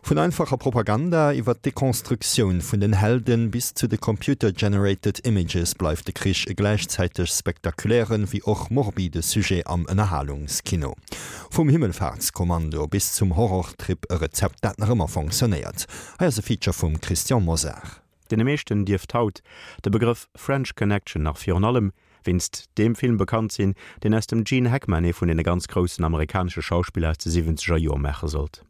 Vun einfacher Propaganda iwwer d'Dekonstruktioun vun den Helden bis zu de Computer-Generated Images bleift de Krich e gläichzäiteg spektakulären, wéi och morbide Sujet am Ënnerhalungskino. Vum Himmelfahrtskommando bis zum Horrortrip, e Rezept dat nach ëmmer fonctionnéiert. Hei ass e Feature vum Christian Mosar. Deene meeschten dierft haut de Begrëff French Connection nach virun allem wéinst deem Film bekannt sinn, deen aus dem Gene Hackman ee vun deene ganz groussen amerikanesche Schauspiller aus de siwwenzeger Joer maache sollt.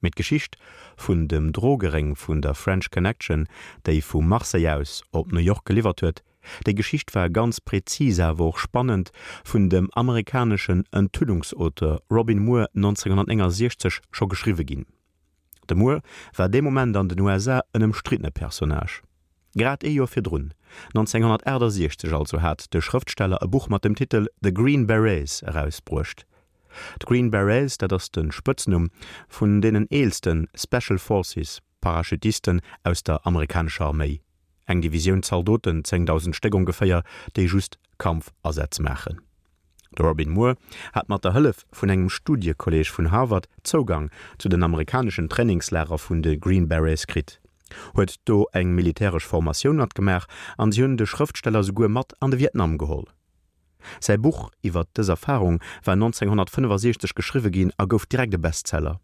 Mee d'Geschicht vun dem Drogeréng vun der French Connection, déi vu Marseille aus op New York geliwwert huet, déi Geschicht war ganz präzis awer och spannend vun dem amerikaneschen Enthüllungsauteur Robin Moore 1969 scho geschriwwe ginn. De Moore war dee Moment an den USA en ëmstriddene Personnage. Grad ee Joer virdrun, 1968 also, hat de Schrëftsteller e Buch mat dem Titel The Green Berets erausbruecht. D'Green Berets, dat ass de Spëtznumm vun deenen eelste Special Forces Parachutisten aus der amerikanescher Arméi, eng Divisioun Zaldoten, 10.000 Stéck ongeféier, déi just Kampfasätz maachen. De Robin Moore hat mat der Hëllef vun engem Studiekolleeg vun Harvard Zougang zu den amerikaneschen Trainingslager vun de Green Berets kritt, huet do eng militäresch Formatioun matgemaach an si hunn de Schrëftsteller souguer mat an de Vietnam geholl. Säi Buch iwwer dës Erfarung war 1965 geschriwwe ginn a gouf direkt e Bestseller.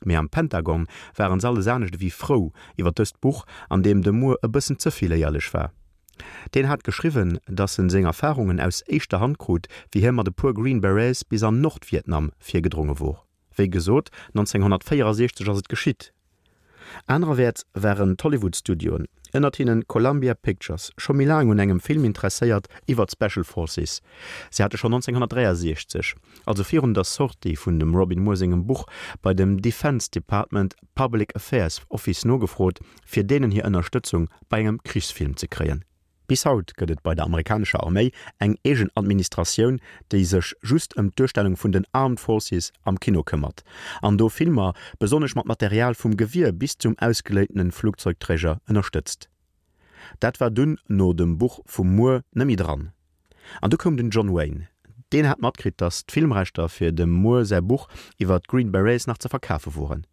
Mee am Pentagon waren se alles anescht ewéi frou iwwer dëst Buch, an deem de Moore e bëssen ze vill éierlech war. Deen hat geschriwwen, datt en seng Erfarungen aus éischter Hand krut, wéi hie mat e puer Green Berets bis an Nordvietnam virgedronge wor. Wéi gesot, 1964 ass et geschitt. Anererwäerts waren d'Hollywood-Studioen, ënnert hinnen Columbia Pictures, scho méi laang un engem Film interesséiert iwwer d'Special Forces. Si hate schonn 1963, also virun der Sortie vun dem Robin Moore sengem Buch, bei dem Defense Department Public Affairs Office nogefrot, fir deenen hir Ënnerstëtzung bei engem Krichsfilm ze kréien. Bis haut gëtt et bei der amerikanescher Arméi eng eegen Administratioun, déi sech just ëm d'Duerstellung vun den Armed Forces am Kino këmmert an do Filmer, besonnesch mat Material vum Gewier bis zum ausgeléintene Flugzeugträger, ënnerstëtzt. Dat war dunn no dem Buch vum Moore net méi dran. An du koum den John Wayne. Deen hat matkritt, datt d'Filmrechter fir dem Moore säi Buch iwwer d'Green Berets nach ze verkafe woren.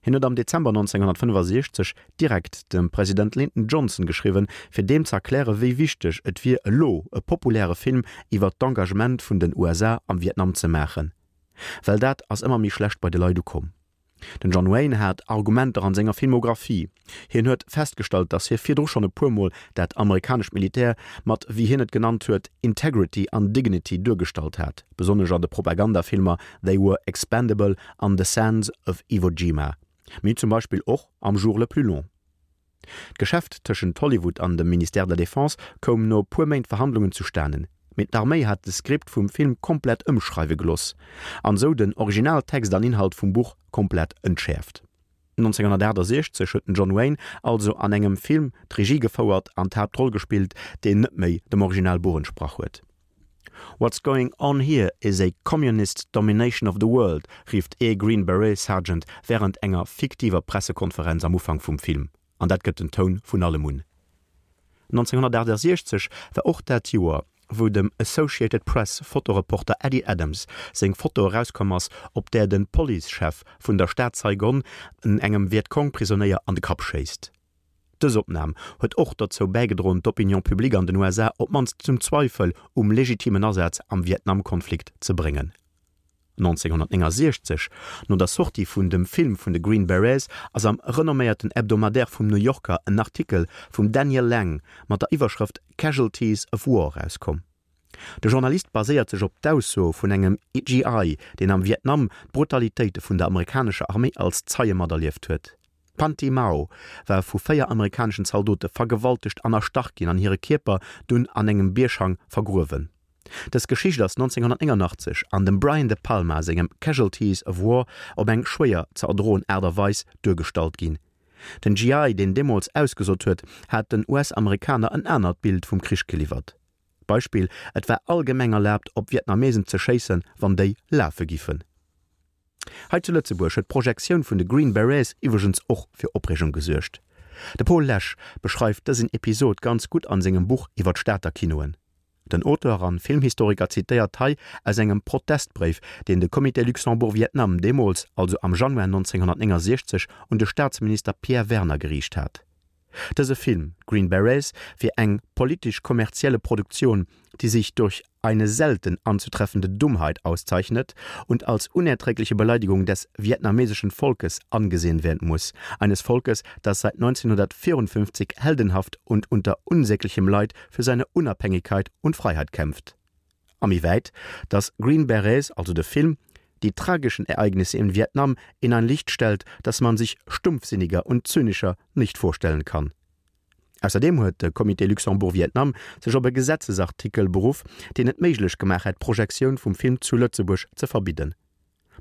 Hien huet am Dezember 1965 direkt dem President Lyndon Johnson geschriwwen, fir deem ze erkläre wéi wichteg et wier elo e populäre Film iwwer d'Engagement vun den USA am Vietnam ze maachen, well dat ass ëmmer méi schlecht bei de Leit ukomm. Den John Wayne hat Argumenter an senger Filmographie. Hien huet festgestallt, datt hie virdru schonn e puer Mol dat amerikanescht Militär mat, wéi hien et genannt huet, Integrity an Dignity duergestallt hat, besonnesch an de Propagandafilmer They Were Expendable an The Sands of Iwo Jima, mee zum Beispill och am Jour le plus long. D'Geschäft tëschent Hollywood an dem Ministère de la Défense koum no puer Méint Verhandlungen zustanen, mee d'Arméi hat de Skript vum Film komplett ëmschreiwe geloss an sou den Originaltext an Inhalt vum Buch komplett entschäerft. 1968 huet den John Wayne also an engem Film d'Regie gefouert an d'Haaptroll gespillt, deen net méi dem Originalbuch entsprach huet. What's going on here is a communist domination of the world, rifft ee Green Beret Sergeant wärend enger fiktiver Pressekonferenz am Ufank vum Film, an dat gëtt den Toun vun allem un. 1968 war och dat Joer, wou dem Associated Press Fotoreporter Eddie Adams seng Foto erauskomm ass, op där de Policechef vun der Stad Saigon engem Vietcong-Prisonéier an de Kapp schéisst. Dës Opnam huet och dozou bäigedroen, d'Opinion publique an den USA op d'mannst zum Zweifel um legitimen Asaz am Vietnam-Konflikt ze bréngen. 1969, no der Sortie vun dem Film vun de Green Berets, ass am renomméierten Hebdomadaire vum New Yorker en Artikel vum Daniel Lang mat der Iwwerschrëft Casualties of War erauskomm. De Journalist baséiert sech op d'Ausso vun engem GI, deen am Vietnam d'Brutalitéite vun der amerikanescher Arméi als Zeie materlieft huet. D'Phanty Mao war vu 4 amerikaneschen Zaldote vergewaltegt an erstach ginn an hire Kierper dunn an engem Bierghang vergruewen. Dës Geschicht ass 1989 an dem Brian De Palma sengem Casualties of War op eng schwéier ze erdroen Aart a Weis duergestallt ginn. Den GI, deen deemools ausgesot huet, hat den US-Amerikaner en anert Bild vum Krich geliwwert. Beispill, Et war allgemeng erlaabt op Vietnamesen ze schéissen, wann déi lafe giffen. Hei zu Lëtzebuerg huet d'Projektioun vun de Green Berets iwwregens och fir Opreegung gesuergt. De Paul Lesch beschreift dësen Episod ganz gutt an sengem Buch iwwer d'Stater Kinoen. Den Auteur an Filmhistoriker zitéiert hei aus engem Protestbréif, deen de Comité Luxembourg-Vietnam deemools, also am Januar 1969, un de Staatsminister Pierre Werner geriicht hat. Dëse Film, Green Berets, wier eng politisch-kommerzielle Produktion, die sich durch eine selten anzutreffende Dummheit auszeichnet und als unerträgliche Beleidigung des vietnamesischen Volkes angesehen werden muss, eines Volkes, das seit 1954 heldenhaft und unter unsäglichem Leid für seine Unabhängigkeit und Freiheit kämpft. A méi wäit, dass Green Berets, also de Film, die tragischen Ereignisse in Vietnam in ein Licht stellt, das man sich stumpfsinniger und zynischer nicht vorstellen kann. Ausserdeem huet de Comité Luxembourg-Vietnam sech op e Gesetzesartikel beruff, deen et méiglech gemaach hätt, d'Projektioun vum Film zu Lëtzebuerg ze verbidden.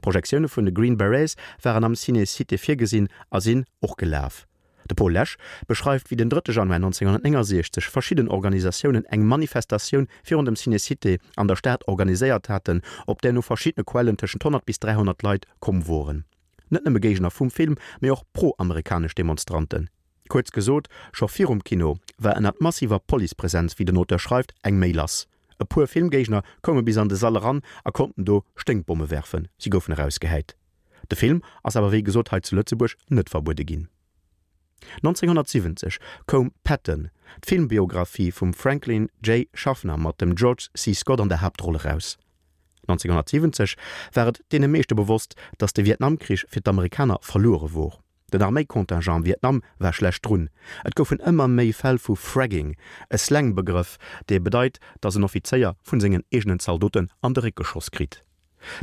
D'Projektioune vun de Green Berets waren am Ciné Cité virgesinn a sinn och gelaf. De Paul Lesch beschreift, wéi den drëtte Januar 1969 verschidden Organisatiounen eng Manifestatioun virun dem Ciné Cité an der Stad organiséiert haten, op där no verschiddene Quellen tëschent 100 bis 300 Leit komm woren. Net nëmme Géigner vum Film, mee och pro-amerikanesch Demonstranten. Kuerz gesot, scho virum Kino war ënnert massiver Policepresenz, wéi den Auteur schreift, eng Méi lass. E puer Filmgéigner koume bis an de Sall eran a konnten do Sténkbomme werfen. Si goufen erausgehäit. De Film ass awer wéi gesot hei zu Lëtzebuerg net verbuede ginn. 1970 koum Patton, d'Filmbiographie vum Franklin J. Schaffner mat dem George C. Scott an der Haaptroll eraus. 1970 war et deene meeschte bewosst, datt de Vietnamkrich fir d'Amerikaner verluere wor. Den Arméicontingent am Vietnam war schlecht drun. Et goufen ëmmer méi Fäll vu Fragging, e Slang-Begrëff, dee bedeit, datt en Offizéier vun sengen eegenen Zaldoten an de Réck geschoss kritt.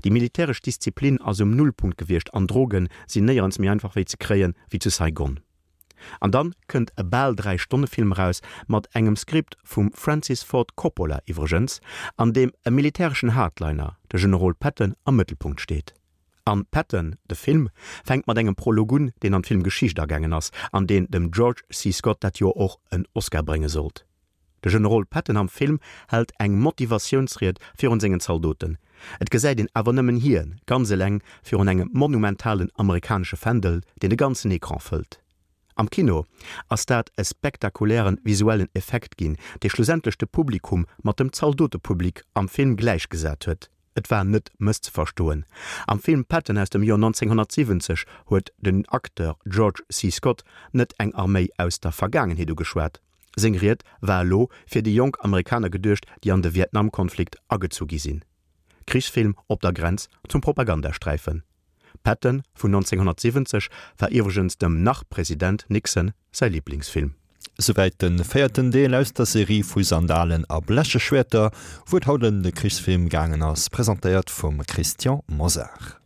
Déi militäresch Disziplin ass um Nullpunkt gewiescht an Droge sinn néierens méi einfach wéi ze kréien, wéi zu Saigon. An dann kënnt e bal 3 Stonne Film eraus, mat engem Skript vum Francis Ford Coppola iwwregens, an deem e militäreschen Hardliner, de Generol Patton, am Mëttelpunkt steet. An Patton, de Film, fänkt mat engem Prolog un, deen an d'Filmgeschicht agaangen ass, an deen dem George C. Scott dat Joer och en Oscar brénge sollt. De Generol Patton am Film hält eng Motivatiounsried virun sengen Zaldoten. Et gesäit een awer nëmmen hien, ganz eleng virun engem monumentalen amerikanesche Fändel, deen de ganzen Ecran fëllt. Am Kino ass dat e spektakulären visuellen Effekt ginn, dee schlussendlech de Publikum mat dem Zaldotepublik am Film gläichgesat huet. Et war net mësszeverstoen. Am Film Patton aus dem Joer 1970 huet den Acteur George C. Scott net eng Arméi aus der Vergaangenheet ugeschwat. Seng Ried war elo fir déi jonk Amerikaner geduecht, déi an de Vietnamkonflikt agezu gi sinn. Krichsfilm op der Grenz zum Propagandasträifen. Patton vun 1970 war iwwregens dem Nach-President Nixon säi Liblingsfilm. Souwäit de véierten Deel aus der Serie vu Sandalen a bleche Schwäerter, wou et haut ëm de Krichsfilm gaangen ass, presentéiert vum Christian Mosar.